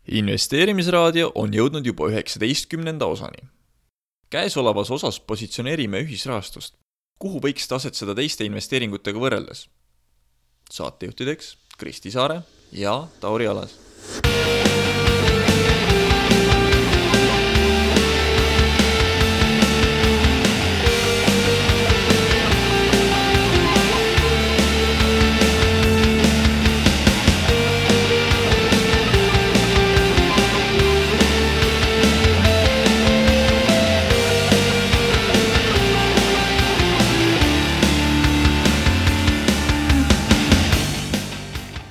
Investeerimisraadio on jõudnud juba 19. osani. Käesolevas osas positsioneerime ühisrahastust, kuhu võiks tasetseda teiste investeeringutega võrreldes. Saatejuhtideks Kristi Saare ja Tauri Alas.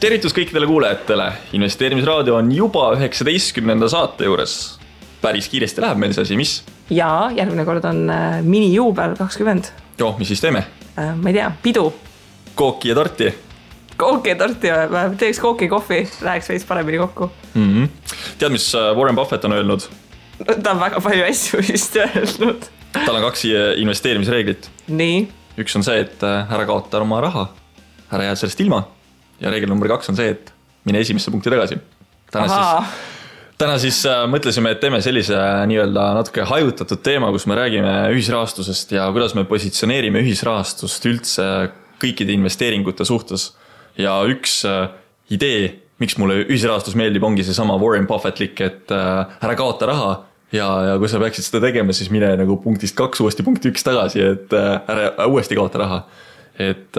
Tervitus kõikidele kuulajatele. Investeerimisraadio on juba 19. saate juures. Päris kiiresti läheb meil see asi, mis? Jaa, järgmine kord on minijuubel 20. Joo, mis siis teeme? Ma ei tea, pidu. Kooki ja torti. Kooki ja torti, teeks kooki kohvi, läheks veits paremini kokku. Tead, mis Warren Buffett on öelnud? Ta on väga palju asju vist öelnud. Tal on 2 investeerimisreeglit. Nii. Üks on see, et ära kaota oma raha. Ära jääd sellest ilma. Ja reegel number 2 on see, et mine esimesse punkti tagasi. Täna siis mõtlesime, et teeme sellise nii-öelda natuke hajutatud teema, kus me räägime ühisrahastusest ja kuidas me positsioneerime ühisrahastust üldse kõikide investeeringute suhtes. Ja üks idee, miks mulle ühisrahastus meeldib, ongi see sama Warren Buffettlik, et ära kaota raha ja kui sa peaksid seda tegema, siis mine nagu punktist 2 uuesti punkti 1 tagasi, et ära uuesti kaota raha. Et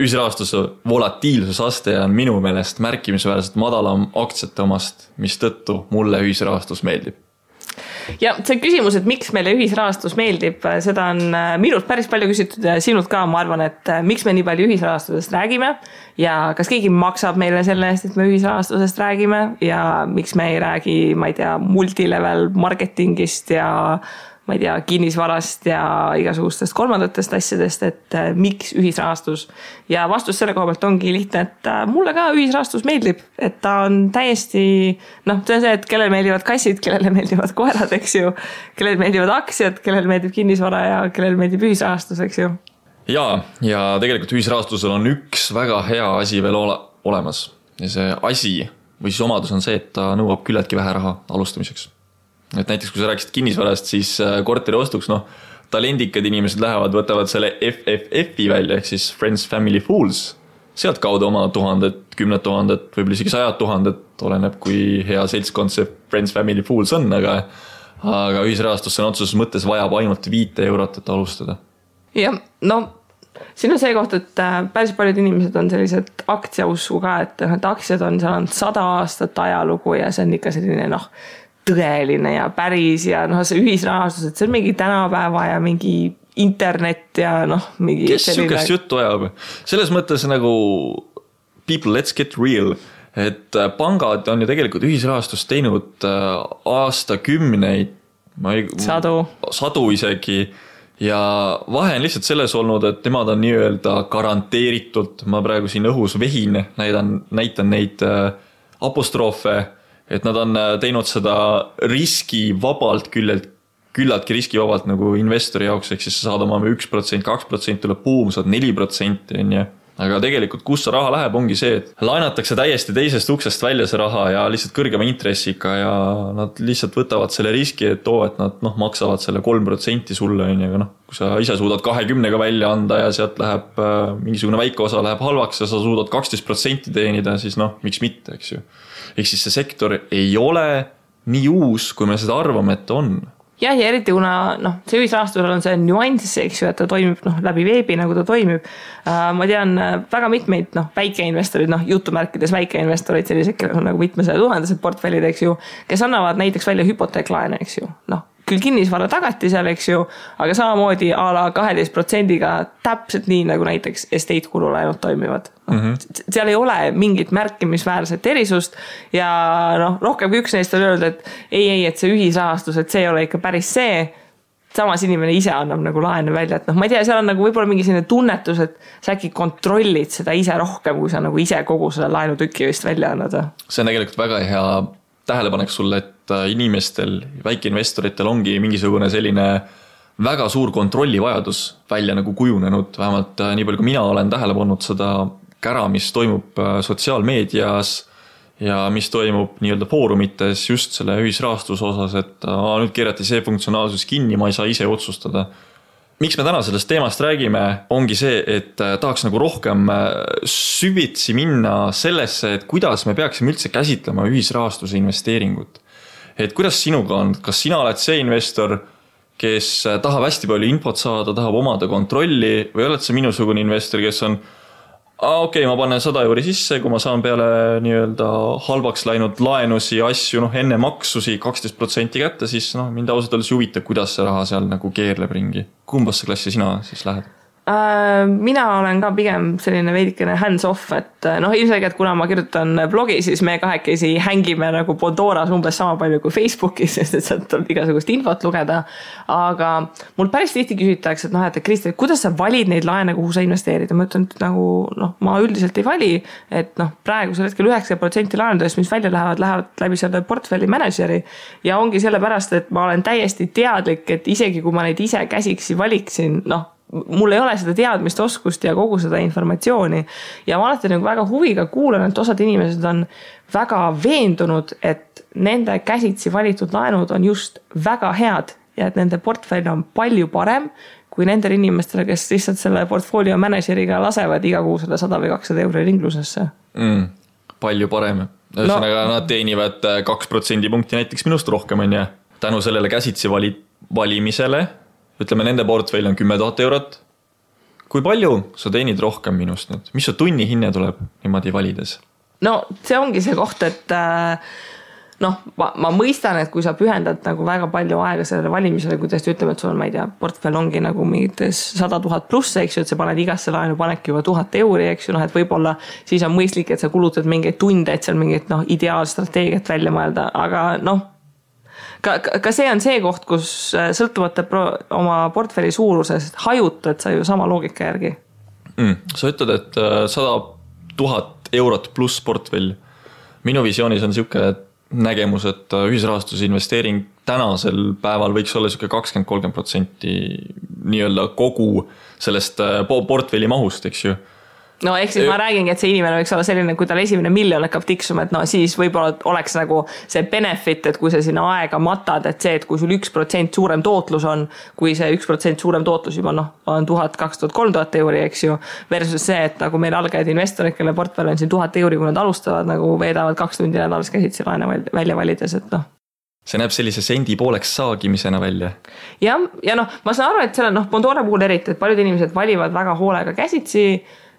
ühisrahastuse volatiilsusaste on minu meelest märkimisväärselt madalam aktsiate omast, mis tõttu mulle ühisrahastus meeldib. Ja see küsimus, et miks meile ühisrahastus meeldib, seda on minult päris palju küsitud ja sinult ka, ma arvan, et miks me nii palju ühisrahastusest räägime ja kas keegi maksab meile selle eest, et me ühisrahastusest räägime ja miks me ei räägi, ma ei tea, multilevel marketingist ja ma ei tea, kinnisvarast ja igasugustest kolmandatest asjadest, et miks ühisrahastus. Ja vastus selle koha pealt ongi lihtne, et mulle ka ühisrahastus meeldib, et ta on täiesti, see on see, et kellele meeldivad kassid, kellele meeldivad koerad, eks ju, kellele meeldivad aktsiad, kellele meeldib kinnisvara ja kellele meeldib ühisrahastus, eks ju. Ja tegelikult ühisrahastusel on üks väga hea asi veel olemas. Ja see asi või siis omadus on see, et ta nõuab küllaltki vähe raha alustamiseks. Et näiteks kui sa rääkisid kinnisvarast, siis korteri ostuks, talendikad inimesed lähevad, võtavad selle FFF-i välja, ehk siis Friends, Family, Fools. Sealt kaudu oma 1000, 10 000, võib-olla isegi 100 000, oleneb kui hea seltskond see Friends, Family, Fools on, aga ühisrahastusse on otsuses mõttes vajab ainult 5 eurot, et alustada. Ja, siin on see koht, et päris paljud inimesed on sellised aktsiausku ka, et aktsiad on, seal on 100 aastat ajalugu ja see on ikka selline, tõeline ja päris ja see ühisrahastus, et see on mingi tänapäeva ja mingi internet ja mingi kes sükest juttu ajab? Selles mõttes nagu people, let's get real, et pangad on ju tegelikult ühisrahastust teinud aastakümneid, sadu isegi ja vahe on lihtsalt selles olnud, et nemad on nii-öelda garanteeritult, ma praegu siin õhus vehin, näitan neid apostroofe, et nad on teinud seda riskivabalt, küllaltki riskivabalt nagu investori jaoks, ehk siis sa saad oma 1%, 2% tuleb buum, saad 4%, aga tegelikult kus see raha läheb, ongi see, et laenatakse täiesti teisest uksest välja see raha ja lihtsalt kõrgema intressiga ja nad lihtsalt võtavad selle riski, et nad maksavad selle 3% sulle, aga kui sa ise suudad 20-ga välja anda ja sealt läheb mingisugune väike osa läheb halvaks ja sa suudad 12% teenida, siis miks mitte, eks ju. Ehk siis see sektor ei ole nii uus, kui me seda arvame, et on. Ja eriti kuna see ühisrahastusel on see nüanss, eks ju, et ta toimib läbi veebi, nagu ta toimib. Ma tean väga mitmeid väikeinvestorid, jutumärkides väikeinvestorid, sellised, kellel on nagu mitmesaja tuhandesed portfellid, eks ju, kes annavad näiteks välja hüpoteeklaene, eks ju. Küll kinnisvara tagati seal, eks ju, aga samamoodi a la 12%-ga täpselt nii, nagu näiteks estate kululaenud toimivad. Seal ei ole mingit märkimisväärset erisust ja rohkem kui üks neist on öelnud, et ei, et see ühisrahastus, et see ei ole ikka päris see, samas inimene ise annab nagu laene välja, et ma ei tea, seal on nagu võib-olla mingi selline tunnetus, et sa äkki kontrollid seda ise rohkem, kui sa nagu ise kogu selle laenutükki vist välja annad. See on tegelikult väga hea tähelepanek sulle, et inimestel, väikeinvestoritel ongi mingisugune selline väga suur kontrollivajadus välja nagu kujunenud, vähemalt nii palju kui mina olen tähele pannud seda kära, mis toimub sotsiaalmeedias ja mis toimub nii-öelda foorumites just selle ühisrahastuse osas, et nüüd keerati see funktsionaalsus kinni, ma ei saa ise otsustada. Miks me täna sellest teemast räägime, ongi see, et tahaks nagu rohkem süvitsi minna sellesse, et kuidas me peaksime üldse käsitlema ühisrahastuse investeeringut. Et kuidas sinuga on, kas sina oled see investor, kes tahab hästi palju infot saada, tahab omada kontrolli või oled see minusugune investor, kes on okei, ma panen 100 euri sisse, kui ma saan peale nii-öelda halvaks läinud laenusi, asju, enne maksusi 12% kätte, siis mind ausalt öeldes huvita, kuidas see raha seal nagu keerleb ringi. Kumbasse klassi sina siis lähed? Mina olen ka pigem selline veidikene hands off, et ilmselgelt kuna ma kirjutan blogi, siis me kahekesi hängime nagu Bondoras umbes sama palju kui Facebookis, sest et sealt tuleb igasugust infot lugeda. Aga mul päris tihti küsitakse, et Kristi, kuidas sa valid neid laene, kuhu sa investeerid? Ma ütlen, et nagu, ma üldiselt ei vali, et praegusel hetkel 90% laenudest, mis välja lähevad läbi selle portfelli manageri ja ongi sellepärast, et ma olen täiesti teadlik, et isegi kui ma neid ise käsiksi valiksin, mul ei ole seda teadmist, oskust ja kogu seda informatsiooni ja ma alati nagu väga huviga kuulan, et osad inimesed on väga veendunud, et nende käsitsi valitud laenud on just väga head ja et nende portfell on palju parem kui nendel inimestele, kes lihtsalt selle portfolio manageriga lasevad iga kuu 100 või 200 euro ringlusesse. Palju parem. Ühesõnaga nad teenivad 2% punkti näiteks minust rohkem on ja tänu sellele käsitsi valimisele ütleme, nende portfell on 10 000 eurot. Kui palju sa teenid rohkem minust nüüd? Mis su tunni hinne tuleb niimoodi valides? See ongi see koht, et ma mõistan, et kui sa pühendad nagu väga palju aega sellele valimisele, kuidas ütleme, et sul on, ma ei tea, portfell ongi nagu mingites 100 000 pluss, eks ju, et sa paned igasse laenu panedki juba 1000 euri, eks ju, et võib-olla siis on mõistlik, et sa kulutad mingeid tunde, et seal mingit ideaalstrateegiat välja mõelda, aga ka see on see koht, kus sõltuvate oma portfelli suurusest hajutad sa ju sama loogika järgi. Sa ütled, et 100 000 eurot pluss portfell. Minu visioonis on niisugune nägemus, et ühisrahastuse investeering tänasel päeval võiks olla 20-30% nii-öelda kogu sellest portfelli mahust, eks ju. Ehk siis ma räägingi, et see inimene võiks olla selline, kui tal esimene miljon hakkab tiksuma, et siis võib-olla oleks nagu see benefit, et kui sa sinna aega matad, et see, et kui sul 1% suurem tootlus on, kui see 1% suurem tootlus juba on 1000, 2000, 3000 euri, eks ju, versus see, et nagu meil algajad investorid, kelle portfell on siin 1000 euri, kui nad alustavad, nagu veedavad 2 tundi nädalas käsitsi laene välja valides, et See näeb sellise sendi pooleks saagimisena välja. Ja ma saan aru, et selle Bondora puhul eriti, et paljud inimesed valivad väga hoolega käsitsi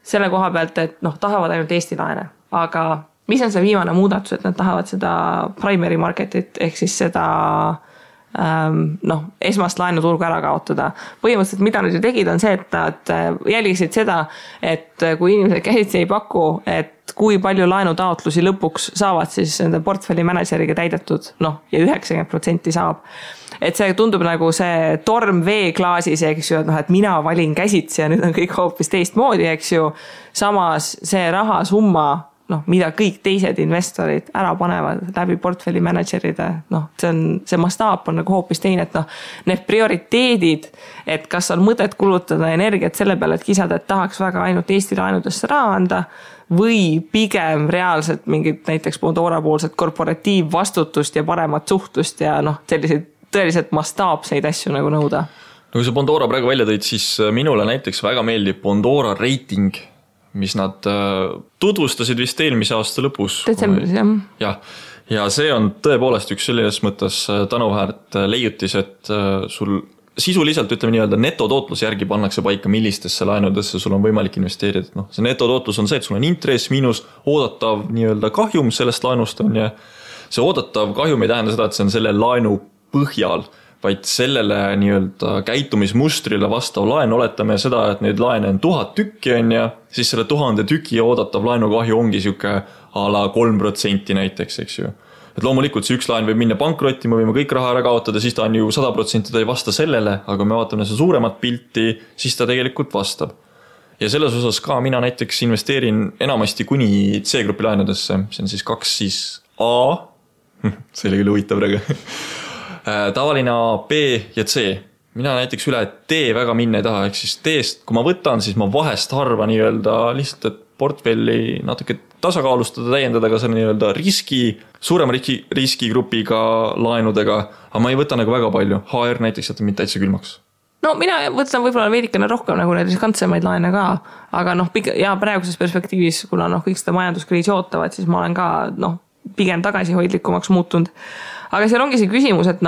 selle koha pealt, et tahavad ainult Eesti laene. Aga mis on see viimane muudatus, et nad tahavad seda primary marketit ehk siis seda esmast laenuturgu ära kaotada. Põhimõtteliselt, mida nad ju tegid, on see, et nad jälgisid seda, et kui inimesed käsitsi ei paku, et kui palju laenutaotlusi lõpuks saavad siis nende portfelli manageriga täidetud, ja 90% saab. Et see tundub nagu see torm veeklaasis, eks ju, et mina valin käsitsi ja nüüd on kõik hoopis teistmoodi, eks ju. Samas see rahasumma, mida kõik teised investorid ära panevad läbi portfelli manageride, see mastaap on nagu hoopis teine, et need prioriteedid, et kas on mõtet kulutada energiat selle peale, et kisada, et tahaks väga ainult Eesti laenudesse raha anda, või pigem reaalselt mingit näiteks Bondora poolset korporatiivvastutust ja paremat suhtust ja selliseid tõeliselt mastaapseid asju nagu nõuda. Kui sa Bondora praegu välja tõid, siis minule näiteks väga meeldib Bondora rating, mis nad tutvustasid vist eelmise aasta lõpus. Detsembris, jah. Ja see on tõepoolest üks selles mõttes tänuväärt leiutis, et sul sisuliselt ütleme nii-öelda netotootlus järgi pannakse paika, millistesse laenudesse sul on võimalik investeerida. See netotootlus on see, et sul on intress miinus oodatav nii-öelda kahjum sellest laenust on ja see oodatav kahjum ei tähenda seda, et see on selle laenu põhjal, vaid sellele nii-öelda käitumismustrile vastav laen, oletame seda, et neid laene on 1000 tükki on ja siis selle 1000 tüki oodatav laenukahju ongi siuke a la 3% näiteks, eks ju. Et loomulikult see üks laen võib minna pankrotti, me võime kõik raha ära kaotada, siis ta on ju 100% ta ei vasta sellele, aga me vaatame seda suuremat pilti, siis ta tegelikult vastab. Ja selles osas ka mina näiteks investeerin enamasti kuni C-grupi laenudesse, see on siis 2 siis A, see oli küll huvitav praegu, tavaline A, B ja C. Mina näiteks üle D väga minna ei taha, ehk siis D-st, kui ma võtan, siis ma vahest harva nii-öelda lihtsalt, et portfelli natuke tasakaalustada, täiendada ka selle nii-öelda suurema riskigrupiga laenudega, aga ma ei võta nagu väga palju. HR näiteks jätab mind täitsa külmaks. No mina võtan võib-olla veidikene rohkem nagu need riskantsemaid laene ka, aga ja praeguses perspektiivis, kuna kõik seda majanduskriisi ootavad, siis ma olen ka pigem tagasihoidlikumaks muutunud. Aga seal ongi see küsimus, et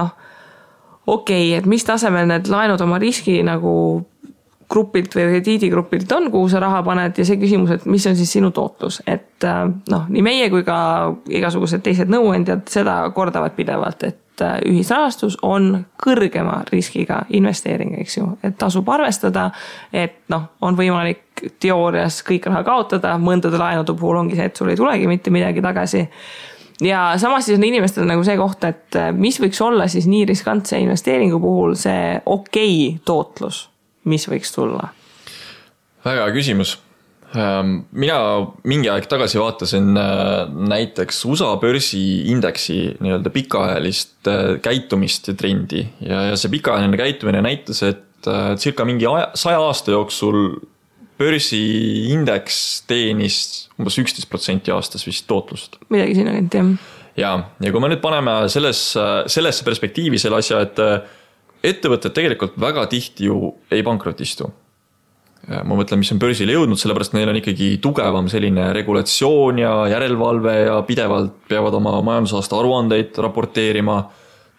et mis tasemel need laenud oma riski nagu grupilt või krediidigrupilt on, kuhu sa raha paned ja see küsimus, et mis on siis sinu tootlus. Et nii meie kui ka igasugused teised nõuandjad seda kordavad pidevalt, et ühisrahastus on kõrgema riskiga investeering, eks ju, et tasub arvestada, et on võimalik teoorias kõik raha kaotada, mõndade laenude puhul ongi see, et sul ei tulegi mitte midagi tagasi. Ja samas siis on inimestel nagu see koht, et mis võiks olla siis nii riskantse investeeringu puhul see okei tootlus, mis võiks tulla? Väga küsimus. Mina mingi aeg tagasi vaatasin näiteks USA börsiindeksi nii-öelda pikaajalist käitumist ja trendi ja see pikaajaline käitumine näitas, et circa mingi 100 aasta jooksul börsiindeks teenis umbes 11% aastas vist tootlust. Midagi sinna kanti, jah. Ja kui me nüüd paneme sellesse perspektiivi selle asja, et ettevõtted tegelikult väga tihti ju ei pankrotistu. Ma mõtlen, mis on börsile jõudnud, sellepärast neil on ikkagi tugevam selline regulatsioon ja järelevalve ja pidevalt peavad oma majandusaasta aruandeid raporteerima,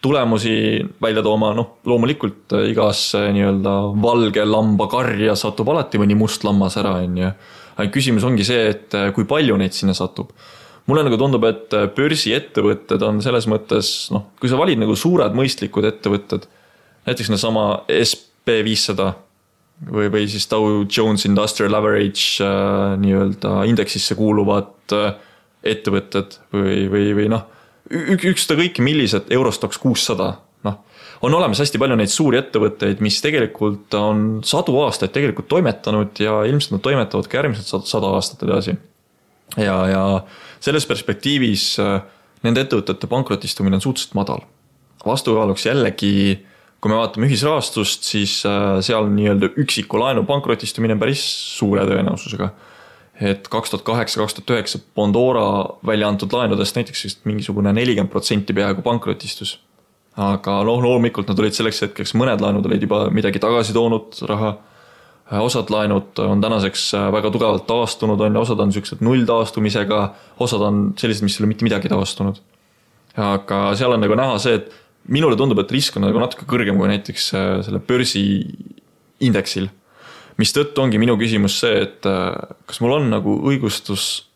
tulemusi välja tooma, loomulikult igas nii-öelda valge lamba karja satub alati mõni must lammas ära. Küsimus ongi see, et kui palju neid sinna satub. Mulle nagu tundub, et börsiettevõtted on selles mõttes, kui sa valid nagu suured mõistlikud ettevõtted, näiteks sama SP500 või siis Dow Jones Industrial Average nii-öelda indeksisse kuuluvad ettevõtted või üksta kõiki millised Eurostox 600. On olemas hästi palju neid suuri ettevõtteid, mis tegelikult on 100 aastaid tegelikult toimetanud ja ilmselt nad toimetavad ka järgmised 100 aastat edasi. Ja selles perspektiivis nende ettevõtete pankrotistumine on suhteliselt madal. Vastukaaluks jällegi, kui me vaatame ühisrahastust, siis seal nii-öelda üksiku laenu pankrotistumine päris suure tõenäosusega. Et 2008-2009 Pandora välja antud laenudest näiteks mingisugune 40% peaaegu pankrotistus. Aga loomulikult nad olid selleks hetkeks, mõned laenud olid juba midagi tagasi toonud raha. Osad laenud on tänaseks väga tugevalt taastunud, osad on sellised nulltaastumisega, osad on sellised, mis ei ole mitte midagi taastunud. Aga seal on nagu näha see, et minule tundub, et risk on nagu natuke kõrgem kui näiteks selle börsi indeksil. Mis tõttu ongi minu küsimus see, et kas mul on nagu õigustus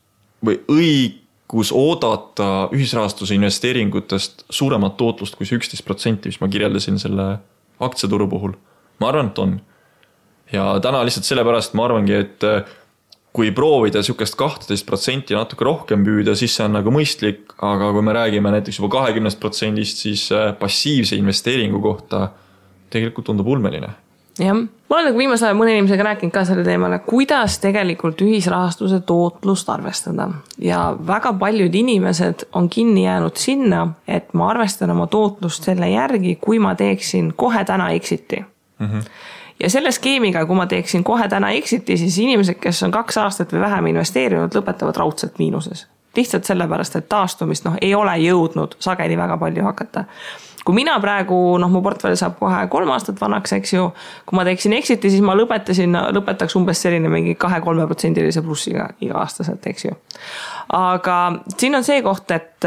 või õigus oodata ühisrahastuse investeeringutest suuremat tootlust kui see 11%, mis ma kirjeldasin selle aktsiaturu puhul. Ma arvan, et on. Ja täna lihtsalt sellepärast ma arvangi, et kui proovida sükest 12% natuke rohkem püüda, siis see on nagu mõistlik, aga kui me räägime näiteks juba 20%, siis passiivse investeeringu kohta tegelikult tundub ulmeline. Jah, ma olen nagu viimase aja mõne inimesega rääkinud ka selle teemale, kuidas tegelikult ühisrahastuse tootlust arvestada. Ja väga paljud inimesed on kinni jäänud sinna, et ma arvestan oma tootlust selle järgi, kui ma teeksin kohe täna exiti. Ja selle skeemiga, kui ma teeksin kohe täna exiti, siis inimesed, kes on 2 aastat või vähem investeerinud, lõpetavad raudselt miinuses. Lihtsalt sellepärast, et taastumist ei ole jõudnud sageli väga palju hakata. Kui mina praegu, mu portfell saab kohe 3 aastat vanaks, eks ju, kui ma teeksin exiti, siis ma lõpetaks umbes selline mingi 2-3% plussiga iga aastaselt, eks ju. Aga siin on see koht, et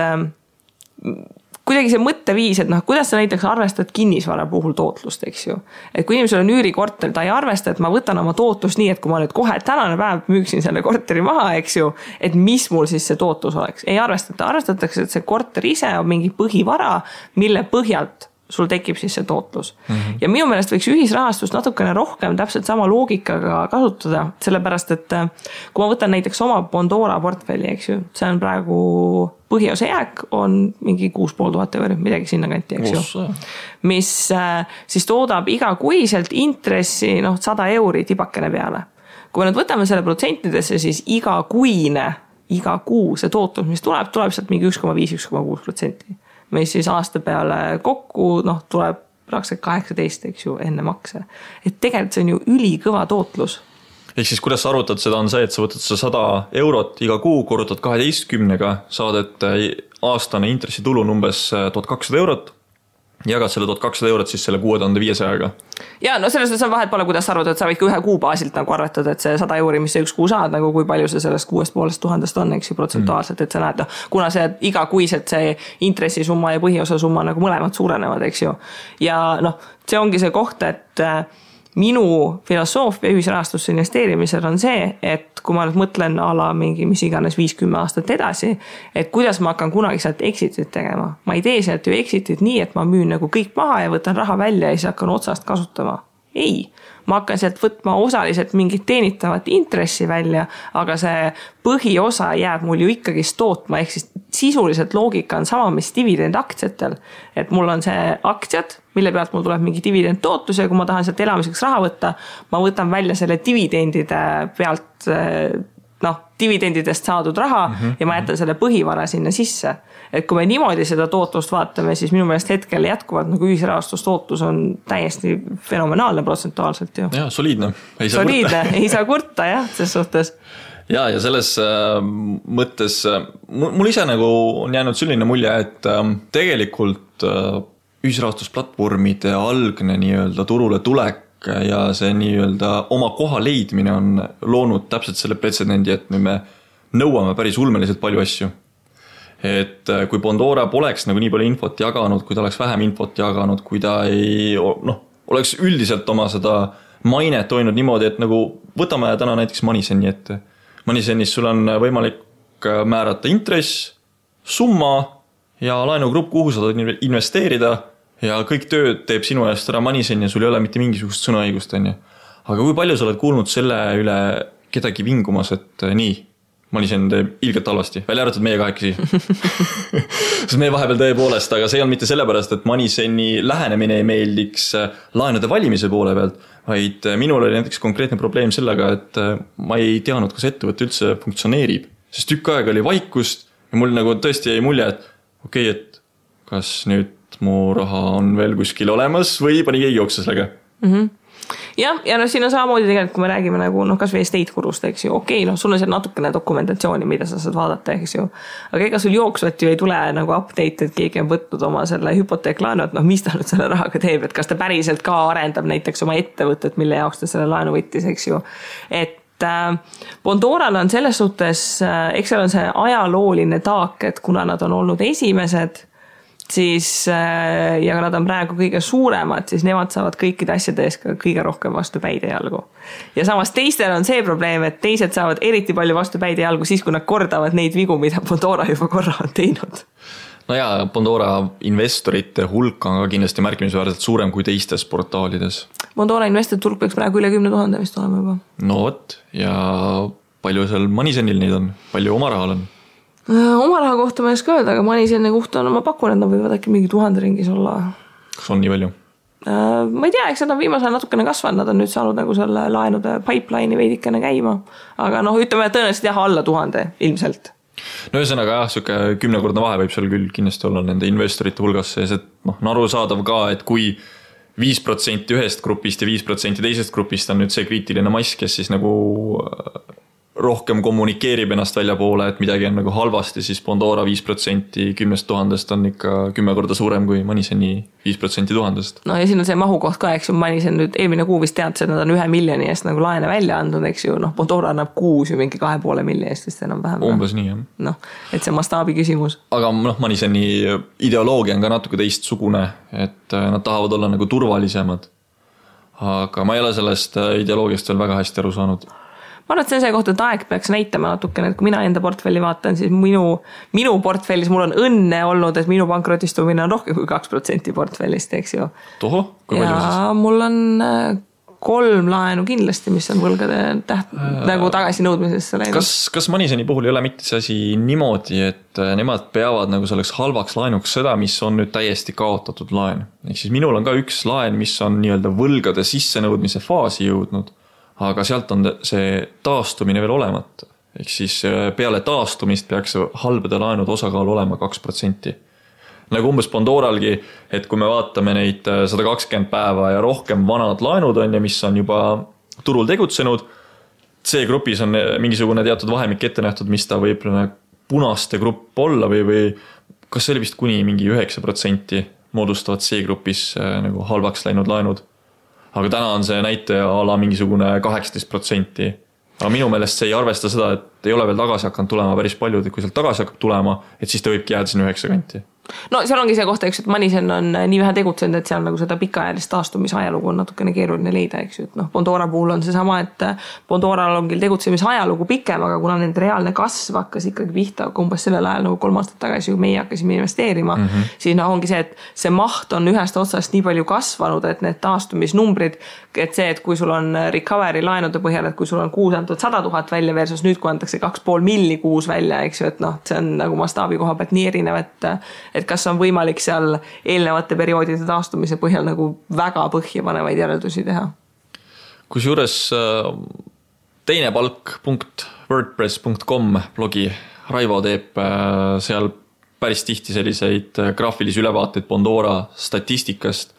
kuidagi see mõtteviis, et kuidas sa näiteks arvestad kinnisvara puhul tootlust, eks ju. Et kui inimesel on üürikorter, ta ei arvesta, et ma võtan oma tootlust nii, et kui ma nüüd kohe tänane päev müüksin selle korteri maha, eks ju, et mis mul siis see tootlus oleks. Ei arvestata, arvestatakse, et see korter ise on mingi põhivara, mille põhjalt sul tekib siis see tootlus. Ja minu meelest võiks ühisrahastust natukene rohkem täpselt sama loogikaga kasutada, sellepärast, et kui ma võtan näiteks oma Pandora portfelli, eks ju, see on praegu põhiosa jääk on mingi 6500 €, midagi sinna kanti, eks ju. Mis siis toodab igakuiselt intressi 100 € tibakene peale. Kui me nüüd võtame selle protsentidesse, siis iga kuu see tootlus, mis tuleb sealt mingi 1,5-1,6%. Mis siis aasta peale kokku tuleb praktiliselt 18, eks ju, enne makse. Et tegelikult see on ju ülikõva tootlus. ehk siis kuidas sa arvutad seda on see, et sa võtad 100 eurot iga kuu, korrutad 12-ga, saad, et aastane intressitulu on umbes 1200 eurot, jagad selle 1200 eurot siis selle 6500-ga. Ja no selles on vahet pole, kuidas sa arvad, et sa võid ka ühe kuu baasilt nagu arvatada, et see 100 euri, mis see üks kuu saad, nagu kui palju see sellest 6500 on, eks ju, protsentuaalselt, et sa näed, kuna see iga kuiselt see intressisumma ja põhiosa summa nagu mõlemad suurenevad, eks ju. Ja noh, see ongi see koht, et minu filosoofia ühisrahastusse investeerimisel on see, et kui ma nüüd mõtlen ala mingi mis iganes 5-10 aastat edasi, et kuidas ma hakkan kunagi sealt exitit tegema. Ma ei tee sealt ju exitit nii, et ma müün nagu kõik maha ja võtan raha välja ja siis hakkan otsast kasutama. Ei, ma hakkan sealt võtma osaliselt mingit teenitavat intressi välja, aga see põhiosa jääb mul ju ikkagi tootma, ehk siis sisuliselt loogika on sama, mis dividend aktsiatel. Et mul on see aktsiad, mille pealt mul tuleb mingi dividend tootlus ja kui ma tahan sealt elamiseks raha võtta, ma võtan välja selle dividendide pealt, dividendidest saadud raha ja ma jätan selle põhivara sinna sisse. Et kui me niimoodi seda tootlust vaatame, siis minu meelest hetkel jätkuvalt nagu ühisrahastustootlus on täiesti fenomenaalne protsentuaalselt ju. Ja, soliidne. Ei saa kurta, jah, selles suhtes. Ja selles mõttes mul ise nagu on jäänud selline mulje, et tegelikult ühisrahastusplatvormide algne nii-öelda turule tulek ja see nii-öelda oma koha leidmine on loonud täpselt selle pretsedendi, et me nõuame päris ulmeliselt palju asju. Et kui Bondora poleks nagu nii palju infot jaganud, kui ta oleks vähem infot jaganud, kui ta oleks üldiselt oma seda mainet hoidnud niimoodi, et nagu võtame täna näiteks Moneyseni ette. Moneysenis sul on võimalik määrata intress, summa ja laenugrupp, kuhu sa saad investeerida ja kõik tööd teeb sinu eest ära Moneysen ja sul ei ole mitte mingisugust sõnaõigust. Aga kui palju sa oled kuulnud selle üle kedagi vingumas, et nii, Moneysen teeb ilgelt halvasti, välja arvatud meie kahekesi. Sest meie vahepeal tõepoolest, aga see on mitte sellepärast, et Moneyseni lähenemine ei meeldiks laenude valimise poole pealt, vaid minul oli näiteks konkreetne probleem sellega, et ma ei teadnud, kas ettevõte üldse funktsioneerib. Sest tükk aega oli vaikust ja mul nagu tõesti jäi mulje, et okei, et kas nüüd mu raha on veel kuskil olemas või pani keegi jooksa sellega. Ja siin on samamoodi tegelikult, kui me räägime nagu kas või estate kurust, eks ju, okei, sul on seal natukene dokumentatsiooni, mida sa saad vaadata, eks ju, aga ega sul jooksvat ju ei tule nagu update, et keegi on võtnud oma selle hüpoteeklaenu, et mis ta nüüd selle rahaga teeb, et kas ta päriselt ka arendab näiteks oma ettevõtet, mille jaoks ta selle laenu võttis, eks ju, et Bondoral on selles suhtes, eks seal on see ajalooline taak, et kuna nad on olnud esimesed, siis, ja nad on praegu kõige suuremad, siis nemad saavad kõikide asjade ees ka kõige rohkem vastu päide jalgu. Ja samas teistel on see probleem, et teised saavad eriti palju vastu päide jalgu siis, kui nad kordavad neid vigu, mida Bondora juba korra on teinud. No ja, Bondora investorite hulk on ka kindlasti märkimisväärselt suurem kui teistes portaalides. Bondora investorite hulk peaks praegu üle 10 000 vist olema juba. No võt, ja palju seal Moneysenil neid on? Palju oma rahal on? Oma raha kohta ma ei oska öelda, aga Moneyseni kohta on, ma pakun, et nad võivad äkki mingi 1000 ringis olla. Kas on nii palju? Ma ei tea, eks nad on viimasel natukene kasvanud, nad on nüüd saanud nagu selle laenude pipeline'i veidikene käima, aga ütleme tõenäoliselt alla 1000 ilmselt. No ühesõnaga jah, siuke 10-kordne vahe võib seal küll kindlasti olla nende investorite hulgas sees, et on arusaadav ka, et kui 5% ühest grupist ja 5% teisest grupist on nüüd see kriitiline mass, kes siis nagu rohkem kommunikeerib ennast välja poole, et midagi on nagu halvasti, siis Bondora 5% 10 000 on ikka 10 korda suurem kui Moneyseni 5% 1000. No ja siin on see mahukoht ka, eks ju, Moneysen nüüd eelmine kuu vist teadis, et nad on 1 miljoni eest nagu laene välja andnud, eks ju, Bondora annab kuus ju mingi 2,5 miljoni eest vist enam vähem. Umbes nii, jah. Et see mastaabi küsimus. Aga Moneyseni ideoloogia on ka natuke teistsugune, et nad tahavad olla nagu turvalisemad. Aga ma ei ole sellest ideoloogiast veel väga hästi aru saanud. Ma arvan, et see kohta, et aeg peaks näitama natukene, et kui mina enda portfelli vaatan, siis minu portfellis mul on õnne olnud, et minu pankrotistumine on rohkem kui 2% portfellist, eks ju. Toho, kui palju siis? Ja mul on 3 laenu kindlasti, mis on võlgade nagu tagasi nõudmisesse läinud. Kas Moneyseni puhul ei ole mitte see asi niimoodi, et nemad peavad nagu selleks halvaks laenuks seda, mis on nüüd täiesti kaotatud laen? Ehk siis minul on ka üks laen, mis on nii-öelda võlgade sissenõudmise faasi jõudnud, aga sealt on see taastumine veel olemata. Ehk siis peale taastumist peaks halbade laenud osakaal olema 2%. Nagu umbes Bondoralgi, et kui me vaatame neid 120 päeva ja rohkem vanad laenud on ja mis on juba turul tegutsenud, C-grupis on mingisugune teatud vahemik ette nähtud, mis ta võib punaste grupp olla või kas see oli vist kuni mingi 9% moodustavad C-grupis nagu halvaks läinud laenud. Aga täna on see näitaja ala mingisugune 18%. Aga minu meelest see ei arvesta seda, et ei ole veel tagasi hakanud tulema päris palju, et kui sealt tagasi hakkab tulema, et siis ta võibki jääda sinna 9 kanti. No seal ongi see kohta, eks, et Manisen on nii vähe tegutsenud, et seal nagu seda pikaajalist taastumise ajalugu on natukene keeruline leida, eks ju, et Bondora puhul on see sama, et Bondoral on küll tegutsemise ajalugu pikem, aga kuna nende reaalne kasv hakkas ikkagi pihta umbes sellel ajal nagu 3 aastat tagasi, kui meie hakkasime investeerima, siis ongi see, et see maht on ühest otsast nii palju kasvanud, et need taastumisnumbrid, et see, et kui sul on recovery laenude põhjal, et kui sul on kuus antud 100 000 välja versus nüüd, kui antakse 2,5 milli kuus välja, eks ju, et see on nagu mastaabi koha pealt nii erinev, et kas on võimalik seal eelnevate perioodide taastumise põhjal nagu väga põhjapanevaid järeldusi teha. Kusjuures teine palk.wordpress.com blogi Raivo teeb seal päris tihti selliseid graafilisi ülevaateid Bondora statistikast,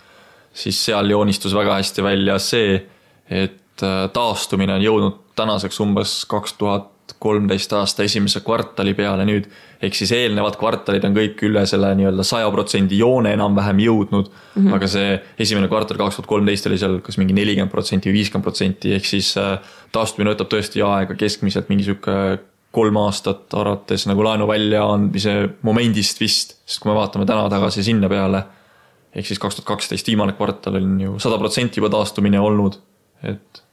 siis seal joonistus väga hästi välja see, et taastumine on jõudnud tänaseks umbes 2013 aasta esimese kvartali peale nüüd, ehk siis eelnevad kvartalid on kõik üle selle nii-öelda 100% joone enam-vähem jõudnud, aga see esimene kvartal 2013 oli seal kas mingi 40% või 50%, ehk siis taastumine võtab tõesti aega keskmiselt mingi 3 aastat arvates nagu laenu välja andmise momendist vist, sest kui me vaatame täna tagasi sinna peale, ehk siis 2012 viimane kvartal on ju 100% juba taastumine olnud, et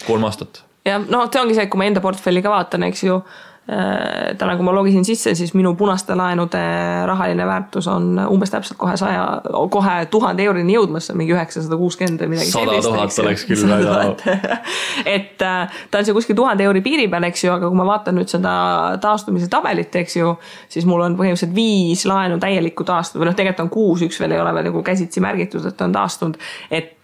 3 aastat. Ja see ongi see, et kui ma enda portfelli ka vaatan, eks ju, täna kui ma logisin sisse, siis minu punaste laenude rahaline väärtus on umbes täpselt kohe 1000 eurini jõudmas, mingi 960 või midagi 100 000 oleks küll väga. Et ta on see kuskil 1000 euri piiri peal, eks ju, aga kui ma vaatan nüüd seda taastumise tabelit, eks ju, siis mul on põhimõtteliselt 5 laenu täielikku taastunud, või tegelikult on 6, üks veel ei ole veel nagu käsitsi märgitud, et on taastunud,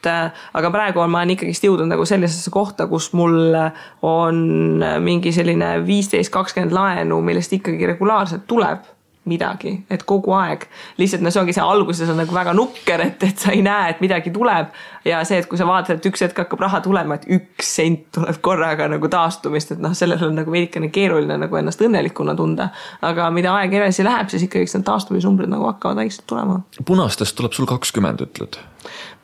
aga praegu ma olen ikkagi jõudnud nagu sellisesse kohta, kus mul on mingi selline 15-20 laenu, millest ikkagi regulaarselt tuleb midagi, et kogu aeg. Lihtsalt see ongi see alguses on nagu väga nukker, et sa ei näe, et midagi tuleb ja see, et kui sa vaatad, et üks hetk hakkab raha tulema, et 1 sent tuleb korraga nagu taastumist, et sellel on nagu veidikene keeruline nagu ennast õnnelikuna tunda, aga mida aeg edasi läheb, siis ikkagi need taastumisnumbrid nagu hakkavad vaikselt tulema. Punastest tuleb sul 20, ütled?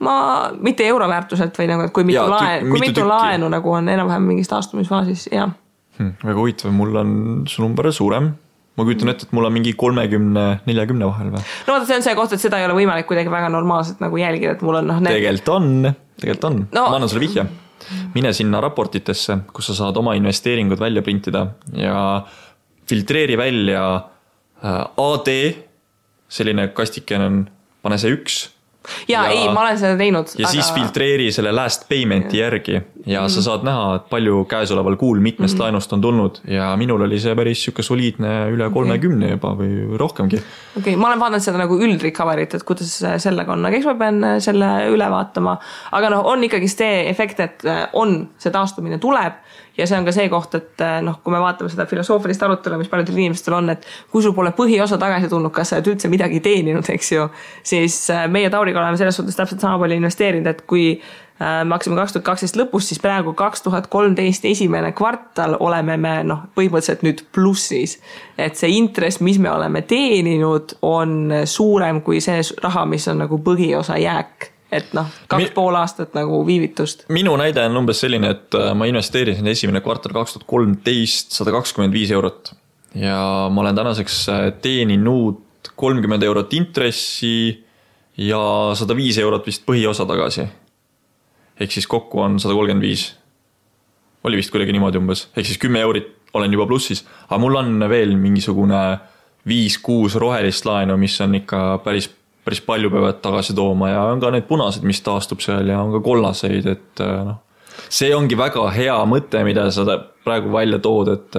Ma mitte euroväärtuselt või nagu, et kui mitu laenu nagu on enam-vähem mingis taastumisfaasis, jah. Väga huvitav, mul on su number suurem. Ma kujutan ette, et mul on mingi 30-40 vahel või? No vaata, see on see koht, et seda ei ole võimalik kuidagi väga normaalselt nagu jälgida, et mul on Tegelikult on. No. Ma annan sulle vihje. Mine sinna raportitesse, kus sa saad oma investeeringud välja printida ja filtreeri välja AD, selline kastiken on, pane see 1. Ja ei, ma olen seda teinud. Ja siis filtreeri selle last paymenti järgi ja sa saad näha, et palju käesoleval kuul mitmest laenust on tulnud ja minul oli see päris siuke soliidne üle 30 juba või rohkemgi. Okay, ma olen vaadanud seda nagu üldrecoverit, et kuidas sellega on, aga eks ma pean selle üle vaatama, aga on ikkagi see efekt, et on see taastumine tuleb ja see on ka see koht, et kui me vaatame seda filosoofilist arutelu, mis paljudel inimestel on, et kui sul pole põhiosa tagasi tulnud, kas sa üldse midagi teeninud, eks ju, siis meie Tauriga oleme selles suhtes täpselt sama palju investeerinud, et kui me hakkasime 2012 lõpus, siis praegu 2013 esimene kvartal oleme me põhimõtteliselt nüüd plussis. Et see intress, mis me oleme teeninud, on suurem kui see raha, mis on nagu põhiosa jääk. Et 2,5 aastat nagu viivitust. Minu näide on umbes selline, et ma investeerisin esimene kvartal 2013 125 eurot ja ma olen tänaseks teeninud 30 eurot intressi ja 105 eurot vist põhiosa tagasi. Ehk siis kokku on 135. Oli vist kuidagi niimoodi umbes. Ehk siis 10 eurit olen juba plussis. Aga mul on veel mingisugune 5-6 rohelist laenu, mis on ikka päris palju peavad tagasi tooma ja on ka need punased, mis taastub seal ja on ka kollaseid, et see ongi väga hea mõte, mida sa praegu välja tood, et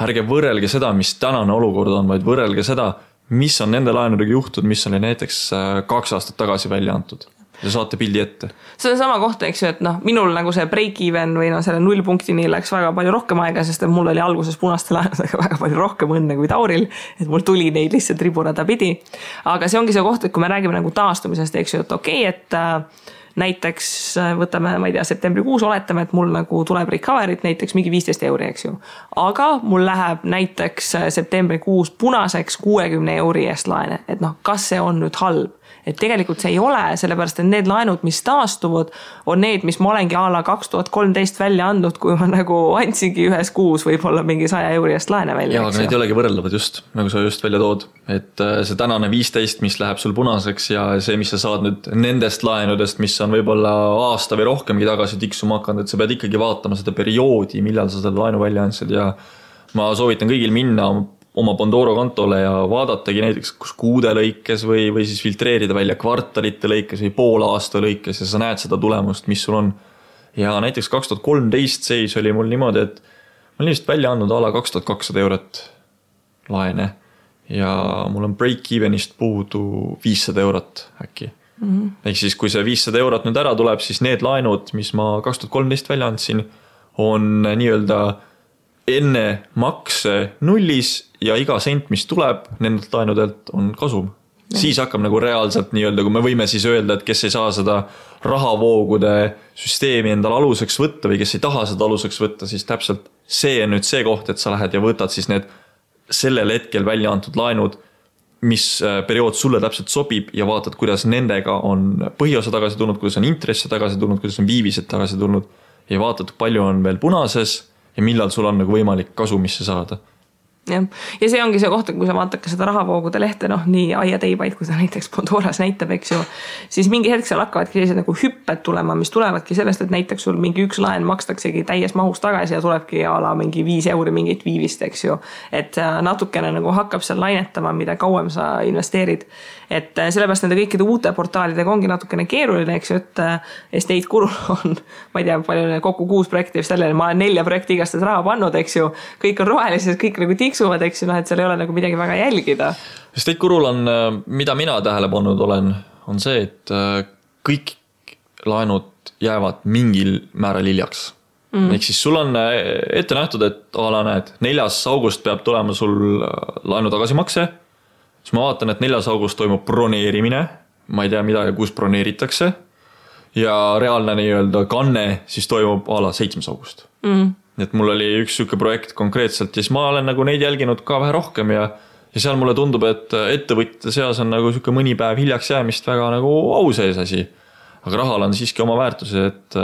ärge võrrelge seda, mis tänane olukord on, vaid võrrelge seda, mis on nende laenudega juhtud, mis oli näiteks 2 aastat tagasi välja antud. Ja saate pildi ette. See on sama kohta, eks ju, et minul nagu see break-even või selle 0 punktini läks väga palju rohkem aega, sest mul oli alguses punaste laenudega väga palju rohkem õnne kui Tauril, et mul tuli neid lihtsalt riburada pidi. Aga see ongi see koht, et kui me räägime nagu taastumisest, eks ju, et okei, et näiteks võtame, ma ei tea, septembrikuus oletame, et mul nagu tuleb recovery't näiteks mingi 15 €, eks ju. Aga mul läheb näiteks septembrikuus punaseks 60 € eest laene, et noh, kas see on nüüd halb? Et tegelikult see ei ole, sellepärast et need laenud, mis taastuvad, on need, mis ma olengi a la 2013 välja andnud, kui ma nagu andsingi ühes kuus võib-olla mingi 100 € eest laene välja. Jaa, aga need ei olegi võrreldavad just, nagu sa just välja tood. Et see tänane 15, mis läheb sul punaseks ja see, mis sa saad nüüd nendest laenudest, mis on võib-olla aasta või rohkemgi tagasi tiksuma hakanud, et sa pead ikkagi vaatama seda perioodi, millal sa seda laenu välja andsid ja ma soovitan kõigil minna oma Bondoro kontole ja vaadatagi näiteks kus kuude lõikes või siis filtreerida välja kvartalite lõikes või pool aasta lõikes ja sa näed seda tulemust, mis sul on. Ja näiteks 2013 seis oli mul niimoodi, et ma olin vist välja andnud a la 2200 € laene ja mul on break-evenist puudu 500 € äkki. Ehk siis kui see 500 € nüüd ära tuleb, siis need laenud, mis ma 2013 välja andsin, on nii-öelda enne makse nullis ja iga sent, mis tuleb nendelt laenudelt, on kasum. Siis hakkab nagu reaalselt nii-öelda, kui me võime siis öelda, et kes ei saa seda rahavoogude süsteemi endal aluseks võtta või kes ei taha seda aluseks võtta, siis täpselt see on nüüd see koht, et sa lähed ja võtad siis need sellel hetkel välja antud laenud, mis periood sulle täpselt sobib ja vaatad, kuidas nendega on põhiosa tagasi tulnud, kuidas on intresse tagasi tulnud, kuidas on viivised tagasi tulnud ja vaatad, palju on veel punases ja millal sul on nagu võimalik kasumisse saada. Ja see ongi see koht, kui sa vaatad ka seda rahavoogude lehte, noh, nii aia teibaid, kui ta näiteks Bondoras näitab, eks ju, siis mingi hetk seal hakkavadki sellised nagu hüpped tulema, mis tulevadki sellest, et näiteks sul mingi üks laen makstaksegi täies mahus tagasi ja tulebki a la mingi 5 € mingit viivist, eks ju. Et natukene nagu hakkab seal lainetama, mida kauem sa investeerid. Et sellepärast nende kõikide uute portaalidega ongi natukene keeruline, eks ju, et Estate Gurul on, ma ei tea, palju kokku 6 projekti vist jälle, ma olen 4 projekti igastades raha pannud, eks ju, kõik on rohelised, kõik nagu tiksuvad, eks ju, noh, et seal ei ole nagu midagi väga jälgida. Estate Gurul on, mida mina tähele pannud olen, on see, et kõik laenud jäävad mingil määral hiljaks. Ehk siis sul on ette nähtud, et ala näed, 4. august peab tulema sul laenu tagasimakse, siis ma vaatan, et 4. august toimub broneerimine, ma ei tea mida ja kus broneeritakse ja reaalne nii-öelda kanne siis toimub a la 7. august. Et mul oli üks süke projekt konkreetselt ja siis ma olen nagu neid jälginud ka vähe rohkem ja seal mulle tundub, et ettevõtjate seas on nagu süke mõni päev hiljaks jäämist väga nagu au sees asi. Aga rahal on siiski oma väärtuse, et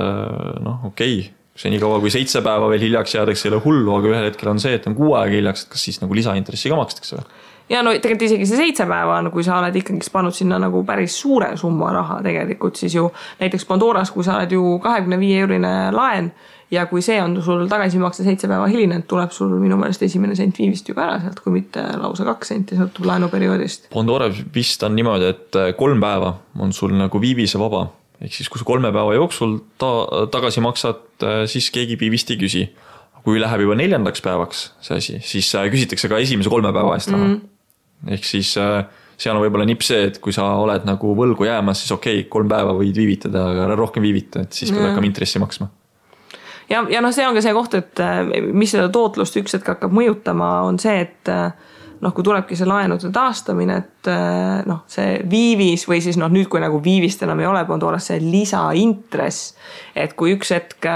noh, okei, see nii kaua kui 7 päeva veel hiljaks jäädakse ei ole hullu, aga ühel hetkel on see, et on 6 aega hiljaks, et kas siis nagu lisaintressi ka makstakse või? Ja no tegelikult isegi see 7 päeva on, kui sa oled ikkagi pannud sinna nagu päris suure summa raha tegelikult, siis ju näiteks Bondoras, kui sa oled ju 25 € laen ja kui see on sul tagasimakse 7 päeva hiline, tuleb sul minu meelest esimene sent viivist ju ka ära sealt, kui mitte lausa 2 senti sõltub laenuperioodist. Bondora vist on niimoodi, et 3 päeva on sul nagu viivise vaba. Ehk siis, kui sa 3 päeva jooksul tagasi maksad, siis keegi viivist ei küsi. Kui läheb juba 4. päevaks see asi, siis küsitakse ka esimese 3 päeva eest raha. Ehk siis seal on võib-olla nipp see, et kui sa oled nagu võlgu jäämas, siis okei, 3 päeva võid viivitada, aga rohkem viivita, et siis pead hakkama intressi maksma. Ja noh, see on ka see koht, et mis seda tootlust üks hetk hakkab mõjutama, on see, et noh, kui tulebki see laenude taastamine, et noh, see viivis või siis noh, nüüd kui nagu viivist enam ei ole, on toolas see lisaintress, et kui üks hetk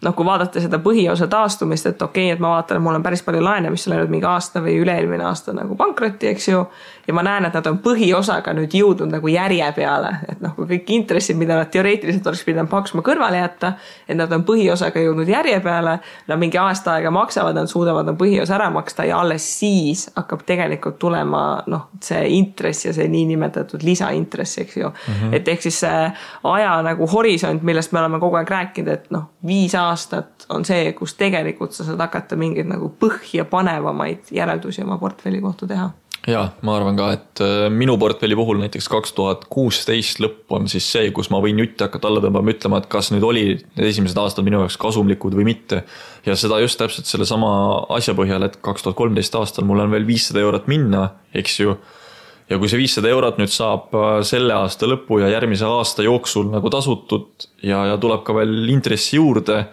noh, kui vaadata seda põhiosa taastumist, et okei, et ma vaatan, et mul on päris palju laene, mis on läinud mingi aasta või üle-eelmine aasta nagu pankrotti, eks ju, ja ma näen, et nad on põhiosaga nüüd jõudnud nagu järje peale, et noh, kui kõik intressid, mida nad teoreetiliselt oleks pidanud maksma kõrvale jätta, et nad on põhiosaga jõudnud järje peale, nad mingi aasta aega maksavad, nad suudavad on põhiosa ära maksta ja alles siis hakkab tegelikult tulema noh, see intress ja see niinimetatud lisaintress, eks ju. Et ehk siis see aja nagu horisont, millest me oleme kogu aeg rääkinud, et noh, 5 aastat on see, kus tegelikult sa saad hakata mingeid nagu põhja panevamaid järeldusi oma portfelli kohta teha. Ja, ma arvan ka, et minu portfelli puhul näiteks 2016 lõpp on siis see, kus ma võin jutti hakata alla tõmbama, ütlema, et kas nüüd oli need esimesed aastad minu jaoks kasumlikud või mitte. Ja seda just täpselt selle sama asja põhjal, et 2013 aastal mul on veel 500 € minna, eks ju. Ja kui see 500 € nüüd saab selle aasta lõpu ja järgmise aasta jooksul nagu tasutud ja tuleb ka veel intressi juurde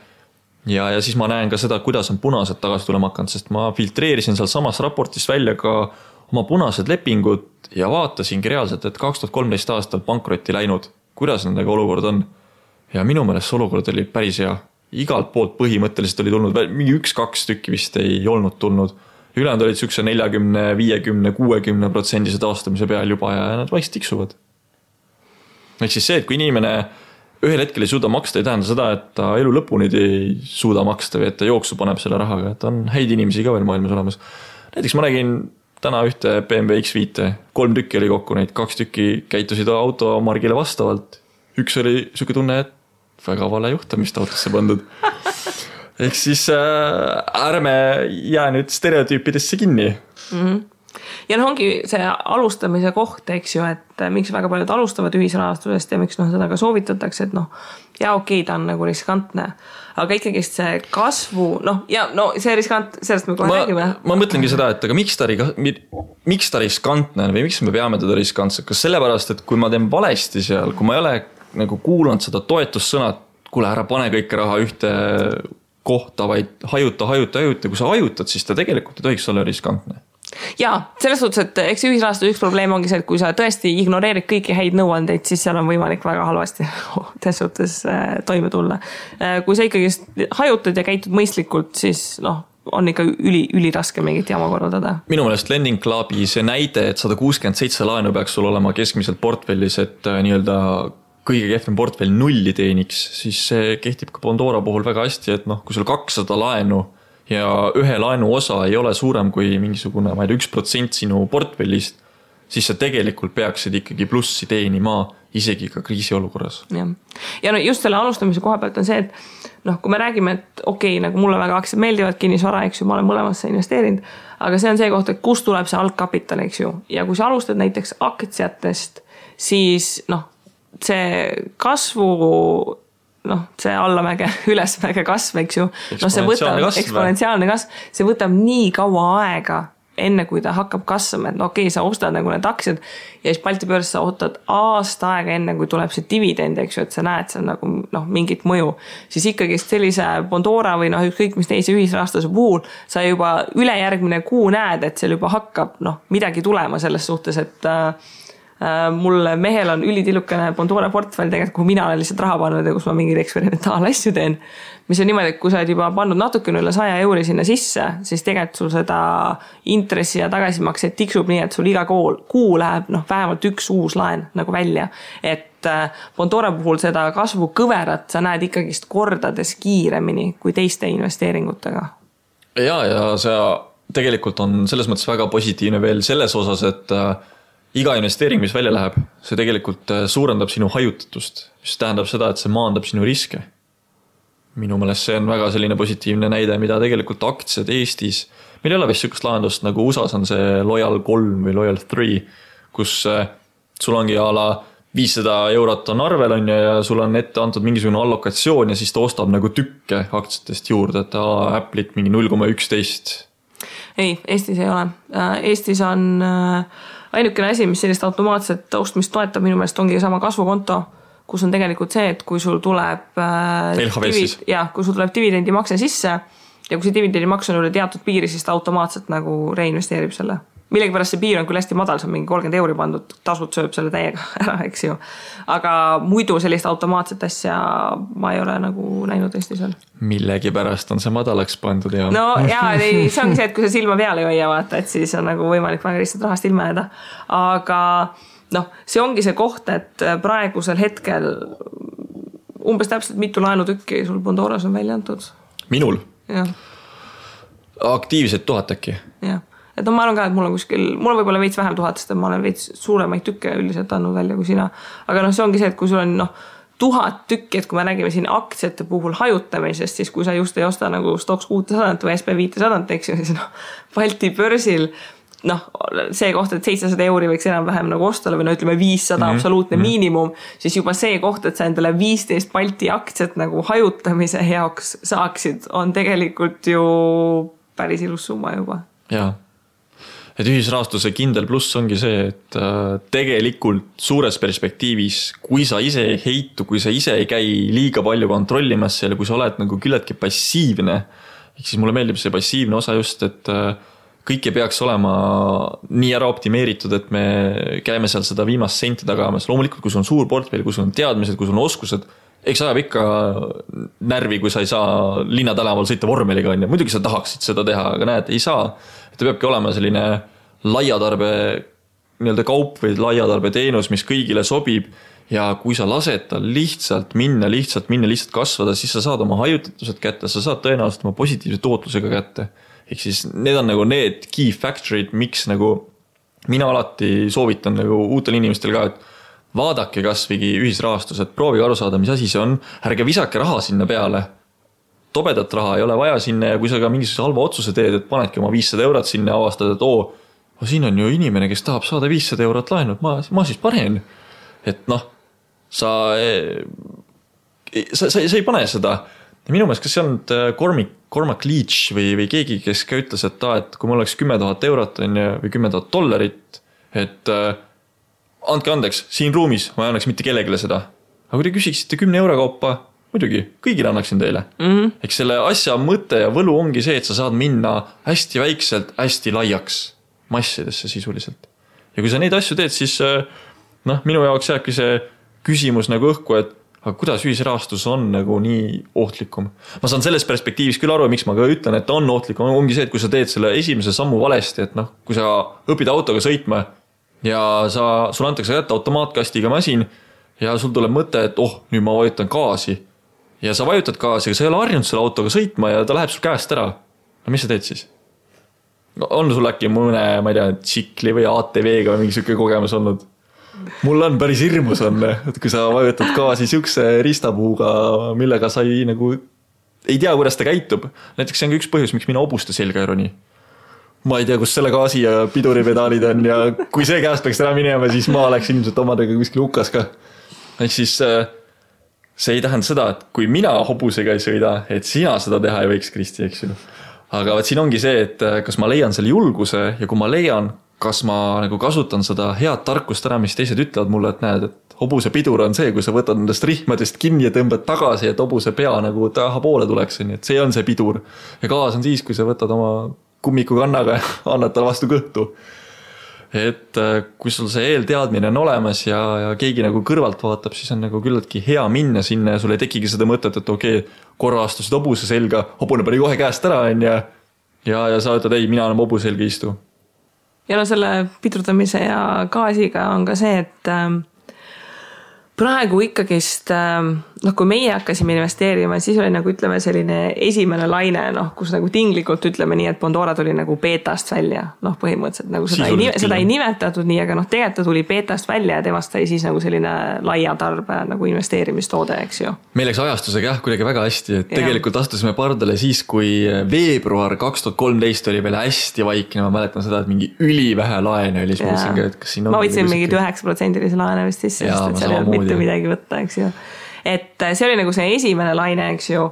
ja siis ma näen ka seda, kuidas on punased tagasi tulema hakanud, sest ma filtreerisin seal samas raportis välja ka oma punased lepingud ja vaatasingi reaalselt, et 2013 aastal pankrotti läinud, kuidas nendega olukord on. ja minu meelest see olukord oli päris hea. Igalt poolt põhimõtteliselt oli tulnud, mingi 1-2 tükki vist ei olnud tulnud. Ülejäänud olid sükse 40, 50, 60% taastamise peal juba ja nad vaikselt tiksuvad. Ehk siis see, et kui inimene ühel hetkel ei suuda maksta, ei tähenda seda, et ta elu lõpuni ei suuda maksta või et ta jooksu paneb selle rahaga, et on häid inimesi ka veel maailmas olemas. Näiteks ma nägin täna ühte BMW X5, 3 tükki oli kokku neid, 2 tükki käitusid automargile vastavalt. Üks oli süke tunne, et väga vale juhtamist autosse pandud. Ehk siis ärme jää nüüd stereotüüpidesse kinni. Ja ongi see alustamise koht, eks ju, et miks väga paljud alustavad ühisrahastusest ja miks seda ka soovitatakse, et ja okei, ta on nagu riskantne, aga ikkagi see kasvu, see riskant, sellest me kohe räägime. Ma mõtlengi seda, et aga miks ta riskantne või miks me peame teda riskantsed, kas sellepärast, et kui ma teen valesti seal, kui ma ei ole nagu kuulanud seda toetussõnad, kuule ära pane kõike raha ühte kohta, vaid hajuta, kui sa hajutad, siis ta tegelikult ei tohiks olla riskantne. Jaa, selles suhtes, et eks ühisrahastus üks probleem ongi see, et kui sa tõesti ignoreerid kõiki häid nõuandeid, siis seal on võimalik väga halvasti selles suhtes toime tulla. Kui sa ikkagi hajutad ja käitud mõistlikult, siis on ikka üli raske mingit jama korraldada. Minu meelest Lending Clubi see näide, et 167 laenu peaks sul olema keskmiselt portfellis, et nii-öelda kõige kehvem portfell nulli teeniks, siis see kehtib ka Pandora puhul väga hästi, et kui sul 200 laenu ja ühe laenu osa ei ole suurem kui mingisugune, ma ei tea, 1% sinu portfellist, siis sa tegelikult peaksid ikkagi plussi teenima isegi ka kriisiolukorras. Ja just selle alustamise koha pealt on see, et kui me räägime, et okei, nagu mulle väga aktsiad meeldivad, kinnisvara, eks ju, ma olen mõlemasse investeerinud, aga see on see koht, et kust tuleb see algkapital, eks ju, ja kui sa alustad näiteks aktsiatest, siis see kasvu see allamäge, ülesmäge kasv, eks ju. See võtab eksponentsiaalne kasv, see võtab nii kaua aega, enne kui ta hakkab kasvama, et okei, sa ostad nagu need aktsiad ja siis Balti börs sa ootad aasta aega enne, kui tuleb see dividend, eks ju, et sa näed seal nagu mingit mõju. Siis ikkagi sellise Pandora või ükskõik mis teise ühisrahastuse puhul sa juba ülejärgmine kuu näed, et seal juba hakkab midagi tulema selles suhtes, et mul mehel on ülitillukene Pandora portfell tegelikult, kuhu mina olen lihtsalt raha pannud ja kus ma mingeid eksperimentaalasju teen, mis on niimoodi, et kui sa oled juba pannud natukene üle 100 euri sinna sisse, siis tegelikult sul seda intressi ja tagasimakseid tiksub nii, et sul iga kuu läheb vähemalt üks uus laen nagu välja, et Pandora puhul seda kasvu kõverat sa näed ikkagist kordades kiiremini kui teiste investeeringutega. Ja see tegelikult on selles mõttes väga positiivne veel selles osas, et iga investeering, mis välja läheb, see tegelikult suurendab sinu hajutatust, mis tähendab seda, et see maandab sinu riske. Minu meelest see on väga selline positiivne näide, mida tegelikult aktsiad Eestis, meil ei ole vist sükast lahendust, nagu USAs on see Loyal 3 või Loyal 3, kus sul ongi ala 500 eurot on arvel on ja sul on ette antud mingisugune allokatsioon ja siis ta ostab nagu tükke aktsiatest juurde, et Apple'it mingi 0,11. Ei, Eestis ei ole. Eestis on ainukene asi, mis sellist automaatset ostmist toetab minu meelest ongi sama kasvukonto, kus on tegelikult see, et kui sul tuleb kui sul tuleb dividendi makse sisse ja kui see dividendi maks on üle teatud piiri, siis ta automaatselt nagu reinvesteerib selle. Millegipärast see piir on küll hästi madal, see on mingi 30 euri pandud, tasud sööb selle täiega ära, eks ju. Aga muidu sellist automaatset asja ma ei ole nagu näinud Eestis veel. Millegipärast on see madalaks pandud ja... No jaa, see ongi see, et kui sa silma peale ei hoia vaata, et siis on nagu võimalik väga lihtsalt rahast ilma jääda. Aga see ongi see koht, et praegusel hetkel umbes täpselt mitu laenutükki sul Pandoras on välja antud. Minul? Jah. Aktiivsed 1000 äkki? Jah. Et ma arvan ka, et mul on võib-olla veits vähem 1000, sest ma olen veits suuremaid tükke üldiselt andnud välja kui sina. Aga see ongi see, et kui sul on 1000 tükki, et kui me räägime siin aktsiate puhul hajutamisest, siis kui sa just ei osta nagu Stoxx 600 või SP 500, eks ju, siis Balti börsil see koht, et 700 euri võiks enam-vähem nagu ostale või ütleme 500 absoluutne miinimum, siis juba see koht, et sa endale 15 Balti aktsiat nagu hajutamise heaks saaksid, on tegelikult ju päris ilus summa juba. Jaa. Et ühisrahastuse kindel pluss ongi see, et tegelikult suures perspektiivis, kui sa ise ei heitu, kui sa ise ei käi liiga palju kontrollimas seal, kui sa oled nagu küllaltki passiivne, siis mulle meeldib see passiivne osa just, et kõik ei peaks olema nii ära optimeeritud, et me käime seal seda viimast senti tagamas. Loomulikult, kui sul on suur portfell, kui sul on teadmised, kui sul on oskused, eks ajab ikka närvi, kui sa ei saa linnatänaval sõita vormeliga, on ja muidugi sa tahaksid seda teha, aga näed, ei saa. Ta peabki olema selline laiatarbe nii-öelda kaup või laiatarbe teenus, mis kõigile sobib ja kui sa lased tal lihtsalt minna, lihtsalt kasvada, siis sa saad oma hajutatused kätte, sa saad tõenäoliselt oma positiivse tootlusega kätte. Ehk siis need on nagu need key factorid, miks nagu mina alati soovitan nagu uutel inimestel ka, et vaadake kasvigi ühisrahastus, et proovige aru saada, mis asi see on, ärge visake raha sinna peale. Tobedat raha ei ole vaja sinna ja kui sa ka mingisuguse halva otsuse teed, et panedki oma 500 eurot sinna ja avastad, et siin on ju inimene, kes tahab saada 500 eurot laenu, ma siis panen. Et sa ei pane seda. Ja minu meelest, kas see on Cormac Leach või keegi, kes ka ütles, et kui mul oleks 10 000 eurot või 10 000 dollarit, et andke andeks, siin ruumis ma ei annaks mitte kellegile seda. Aga kui te küsiksite 10 euro kaupa, muidugi, kõigile annaksin teile. Eks selle asja mõte ja võlu ongi see, et sa saad minna hästi väikselt, hästi laiaks massidesse sisuliselt. Ja kui sa neid asju teed, siis minu jaoks jääbki see küsimus nagu õhku, et aga kuidas ühisrahastus on nagu nii ohtlikum. Ma saan selles perspektiivis küll aru, miks ma ka ütlen, et on ohtlikum, ongi see, et kui sa teed selle esimese sammu valesti, et kui sa õpid autoga sõitma ja sul antakse kätte automaatkastiga masin ja sul tuleb mõte, et nüüd ma vajutan gaasi ja sa vajutad gaasi, aga sa ei ole harjunud selle autoga sõitma ja ta läheb sul käest ära. No mis sa teed siis? On sul äkki mõne, ma ei tea, tsikli või ATV-ga või mingi selline kogemus olnud? Mul on päris hirmus on, et kui sa vajutad gaasi siukse ristapuuga, millega sa ei tea, kuidas ta käitub. Näiteks see on üks põhjus, miks mina hobuste selga ei roni. Ma ei tea, kus selle gaasi ja piduripedaalid on ja kui see käest peaks ära minema, siis ma oleks ilmselt omadega kuskil hukas ka. Ehk siis see ei tähenda seda, et kui mina hobusega ei sõida, et sina seda teha ei võiks, Kristi, eks ju. Aga siin ongi see, et kas ma leian selle julguse ja kui ma leian, kas ma nagu kasutan seda head tarkust ära, mis teised ütlevad mulle, et näed, et hobuse pidur on see, kui sa võtad nendest rihmadest kinni ja tõmbad tagasi, et hobuse pea nagu taha poole tuleks, et see on see pidur. Ja gaas on siis, kui sa võtad oma kummiku kannaga ja annad tal vastu kõhtu. Et kui sul see eelteadmine on olemas ja keegi nagu kõrvalt vaatab, siis on nagu küllaltki hea minna sinna ja sul ei tekigi seda mõtet, et korra astusid hobuse selga, hobune pani kohe käest ära ja sa ütled, ei, mina enam hobuse selga istu. Ja selle pidurdamise ja gaasiga on ka see, et praegu ikkagist, kui meie hakkasime investeerima, siis oli nagu ütleme selline esimene laine, kus nagu tinglikult ütleme nii, et Bondora tuli nagu beetast välja. Põhimõtteliselt nagu seda ei nimetatud nii, aga tegelikult ta tuli beetast välja ja temast sai siis nagu selline laia tarbe nagu investeerimistoode, eks ju. Meil läks ajastusega kuidagi väga hästi, et tegelikult astusime pardale siis, kui veebruar 2013 oli veel hästi vaikne, ma mäletan seda, et mingi ülivähe laene oli. Ma võtsin mingid 9% laene vist sisse, sest seal ei olnud mitte midagi võtta, eks ju. Et see oli nagu see esimene laine, eks ju.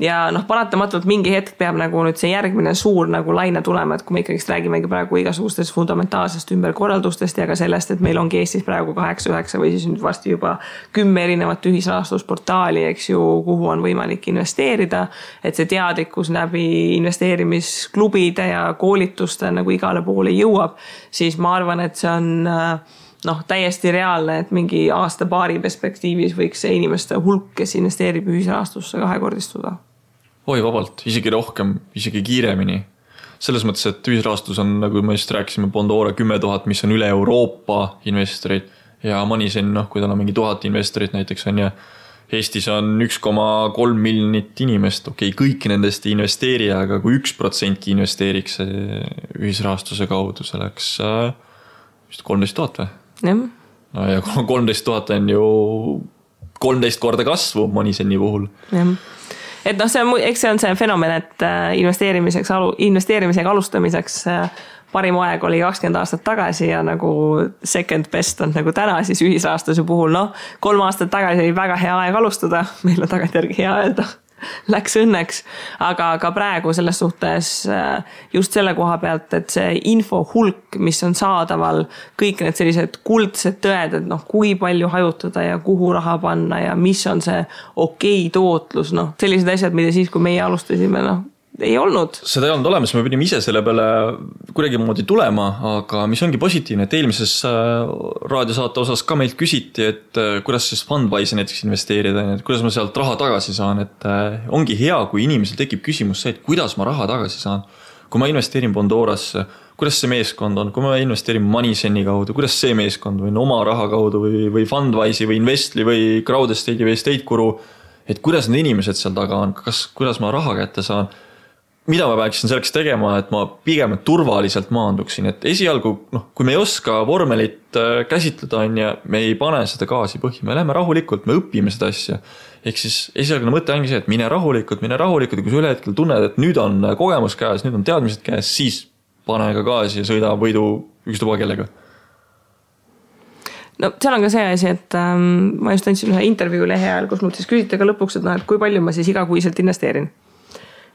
Ja paratamatult mingi hetk peab nagu nüüd see järgmine suur nagu laine tulema, et kui me ikkagi räägimegi praegu igasugustest fundamentaalsest ümberkorraldustest ja ka sellest, et meil ongi Eestis praegu 8-9 või siis nüüd vasti juba 10 erinevat ühisrahastusportaali, eks ju, kuhu on võimalik investeerida, et see teadlikkus läbi investeerimisklubide ja koolituste nagu igale poole jõuab, siis ma arvan, et see on täiesti reaalne, et mingi aasta-paari perspektiivis võiks see inimeste hulk, kes investeerib ühisrahastusse kahekordistuda. Oi, vabalt, isegi rohkem, isegi kiiremini. Selles mõttes, et ühisrahastus on, nagu me just rääkisime, Bondora 10 000, mis on üle Euroopa investorid ja Moneyzen, kui tal on mingi 1000 investorid näiteks on ja Eestis on 1,3 miljonit inimest, kõik nendest ei investeeri, aga kui 1% investeeriks ühisrahastuse kaudu, see läks vist 13 000 või? No ja 13 000 on ju 13 korda kasvu Moniseni puhul. Et eks see on see fenomen, et investeerimisega alustamiseks parim aeg oli 20 aastat tagasi ja nagu second best on nagu täna siis ühisrahastuse puhul. 3 aastat tagasi oli väga hea aeg alustada, meil on tagantjärgi hea öelda. Läks õnneks, aga ka praegu selles suhtes just selle koha pealt, et see info hulk, mis on saadaval, kõik need sellised kuldsed tõed, et kui palju hajutada ja kuhu raha panna ja mis on see okei tootlus, sellised asjad, mida siis, kui meie alustasime, ei olnud. Seda ei olnud olemas, me pidime ise selle peale kuidagi moodi tulema, aga mis ongi positiivne, et eelmises raadiosaate osas ka meilt küsiti, et kuidas siis Fundwise'i näiteks investeerida, et kuidas ma sealt raha tagasi saan, et ongi hea, kui inimesel tekib küsimus see, et kuidas ma raha tagasi saan. Kui ma investeerin Bondorasse, kuidas see meeskond on, kui ma investeerin Moneyzen'i kaudu, kuidas see meeskond või oma raha kaudu või Fundwise'i või Investli või Crowdestate'i või Estate-Guru, et kuidas need inimesed seal taga on, kuidas ma raha kätte saan, mida ma peaksin selleks tegema, et ma pigem turvaliselt maanduksin, et esialgu, kui me ei oska vormelit käsitleda, me ei pane seda gaasi põhja, me läheme rahulikult, me õpime seda asja. Ehk siis esialgne mõte ongi see, et mine rahulikult ja kui sa üle hetkel tunned, et nüüd on kogemus käes, nüüd on teadmised käes, siis pane ka gaasi ja sõida võidu ükstuba kellega. No seal on ka see asi, et ma just andsin ühe intervjuu lehe ajal, kus mult siis küsiti ka lõpuks, et kui palju ma siis igakuiselt investeerin.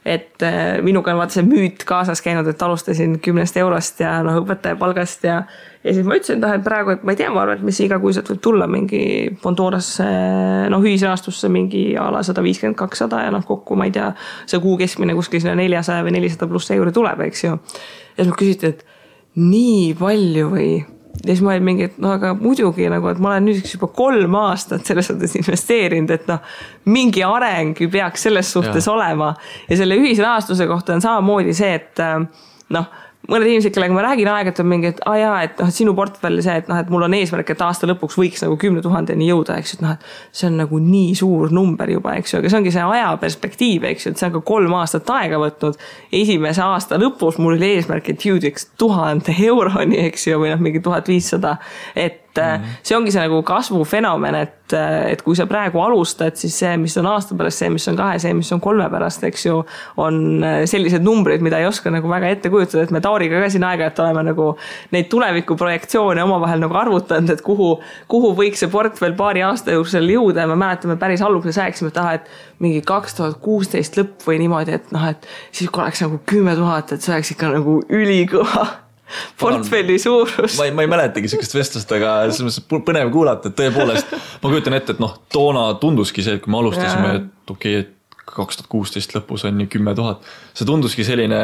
Et minuga on vaata see müüt kaasas käinud, et alustasin 10 eurost ja õpetaja palgast ja siis ma ütlesin, et praegu, et ma ei tea, ma arvan, et mis igakuiselt võib tulla mingi Bondorasse, ühisrahastusse mingi ala 150-200 ja kokku, ma ei tea, see kuu keskmine kuskil 400 või 400 pluss euri tuleb, eks ju. Ja siis ma küsiti, et nii palju või... Ja siis ma olin mingi, et aga muidugi, et ma olen nüüd juba 3 aastat selles suhtes investeerinud, et mingi areng peaks selles suhtes olema. Ja selle ühisrahastuse kohta on samamoodi see, et mõned inimesed, kellega ma räägin aeg-ajalt on mingi, et sinu portfelli see, et mul on eesmärk, et aasta lõpuks võiks 10 000 jõuda, eks ju, et see on nii suur number juba, eks ju, aga see ongi see aja perspektiiv, eks ju, et see on ka 3 aastat aega võtnud. Esimese aasta lõpus mul oli eesmärk, et jõudeks 1000 euroni, eks ju, või mingi 1500, et see ongi see kasvufenomen, et kui sa praegu alustad, siis see, mis on aasta pärast, see, mis on 2, see, mis on 3 pärast, eks ju, on sellised numbrid, mida ei oska väga ette kujutada, et me Tauriga ka siin aega, et oleme neid tulevikuprojektsioone omavahel arvutanud, et kuhu võiks see portfell paari aasta jooksul jõuda ja me mäletame päris alguses rääkisime, et mingi 2016 lõpp või niimoodi, et siis kui oleks 10 000, et see oleks ikka ülikõva portfelli suurus. Ma ei mäletagi sellist vestlust, aga põnev kuulata, et tõepoolest ma kujutan ette, et toona tunduski see, et kui me alustasime, et okei, et 2016 lõpus on 10 000. See tunduski selline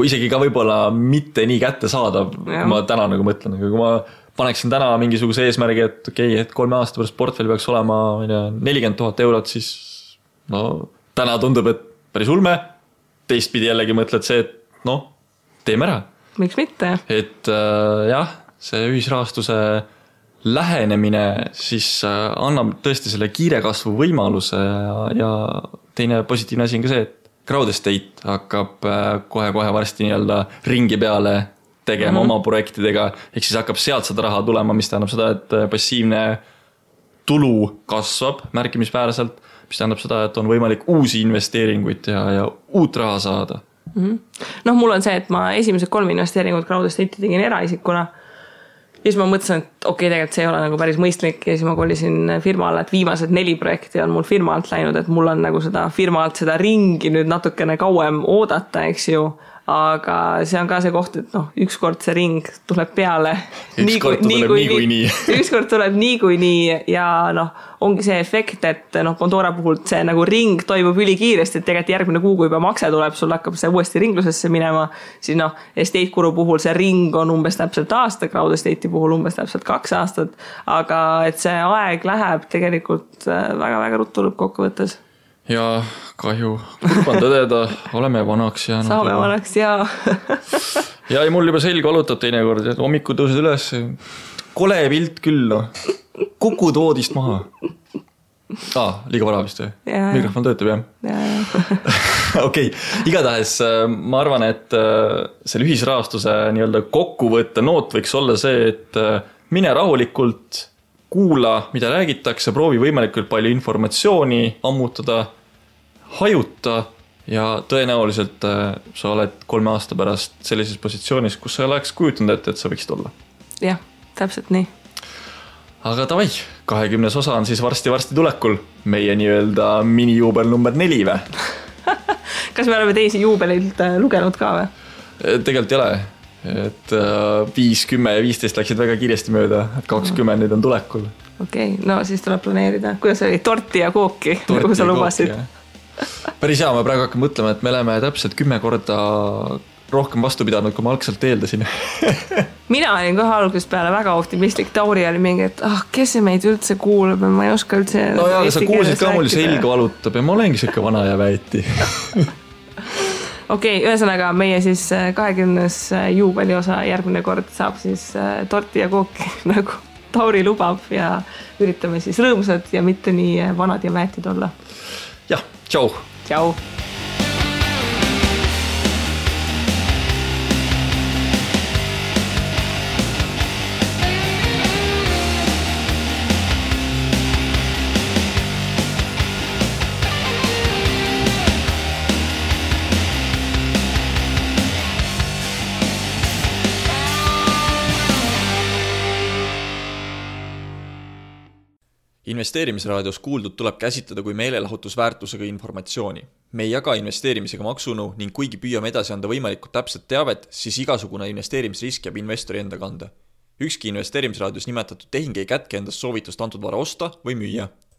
isegi ka võib-olla mitte nii kätte saadav, kui ma täna mõtlen, aga kui ma paneksin täna mingisuguse eesmärgi, et okei, et 3 aasta pärast portfelli peaks olema 40 000 eurot, siis täna tundub, et päris ulme. Teistpidi jällegi mõtled see, et teeme ära. Miks mitte? Et jah, see ühisrahastuse lähenemine siis annab tõesti selle kiire kasvu võimaluse ja teine positiivne asi on ka see, et Crowdestate hakkab kohe varsti ringi peale tegema oma projektidega, ehk siis hakkab sealt seda raha tulema, mis tähendab seda, et passiivne tulu kasvab märkimisväärselt, mis tähendab seda, et on võimalik uusi investeeringuid ja uut raha saada. Mul on see, et ma esimesed 3 investeeringut Crowdestate'i tegin eraisikuna ja siis ma mõtlesin, et okei, tegelikult see ei ole päris mõistlik ja siis ma kolisin firma alla, et viimased 4 projekti on mul firma alt läinud, et mul on seda firma alt seda ringi nüüd natukene kauem oodata, eks ju, aga see on ka see koht, et ükskord see ring tuleb peale ükskord tuleb niikuinii ja ongi see efekt, et Bondora puhul see ring toimub ülikiiresti, et tegelikult järgmine kuu, kui juba makse tuleb, sul hakkab see uuesti ringlusesse minema, siis Estate-Guru puhul see ring on umbes täpselt aasta, Crowdestate'i puhul umbes täpselt 2 aastat, aga et see aeg läheb tegelikult väga-väga ruttu lõppkokkuvõttes. Ja kahju, kurban tõdeda, oleme vanaks jäänud. Saame vanaks, jaa. Ja mul juba selg valutab teinekord, et hommiku tõused üles. Kole pilt küll, kukud voodist maha. Liiga vara vist või? Mikrofon töötab, jah? Okei, igatahes ma arvan, et selle ühisrahastuse kokkuvõtte noot võiks olla see, et mine rahulikult, kuula, mida räägitakse, proovi võimalikult palju informatsiooni ammutada, hajuta ja tõenäoliselt sa oled 3 aasta pärast sellises positsioonis, kus sa oleks kujutanud ette, et sa võiksid olla. Jah, täpselt nii. Aga tavai, 20. osa on siis varsti tulekul. Meie minijuubel number 4 või? Kas me oleme teisi juubelilt lugenud ka või? Tegelikult ei ole. Et 5, 10 ja 15 läksid väga kiiresti mööda, et 20 nüüd on tulekul. Okei, no siis tuleb planeerida. Kuidas oli? Torti ja kooki, nagu sa lubasid? Päris hea, ma praegu hakkan mõtlema, et me oleme täpselt 10 korda rohkem vastu pidanud, kui ma algselt eeldasin. Mina olin kohe algusest peale väga optimistlik, Tauri oli mingi, et kes see meid üldse kuulab ja ma ei oska üldse no jaa, sa kuulsid ka mul selg valutab ja ma olengi siuke vana ja väeti. Okei, ühesõnaga meie siis 20. juubeli osa järgmine kord saab siis torti ja kooki nagu Tauri lubab ja üritame siis rõõmsad ja mitte nii vanad ja väetid olla. Jah, tšau! Tšau! Investeerimisraadios kuuldud tuleb käsitleda kui meelelahutusväärtusega informatsiooni. Me ei jaga investeerimisega maksunu ning kuigi püüame edasi anda võimalikult täpset teavet, siis igasugune investeerimisrisk jääb investori enda kanda. Ükski investeerimisraadios nimetatud tehing ei kätke endast soovitust antud vara osta või müüa.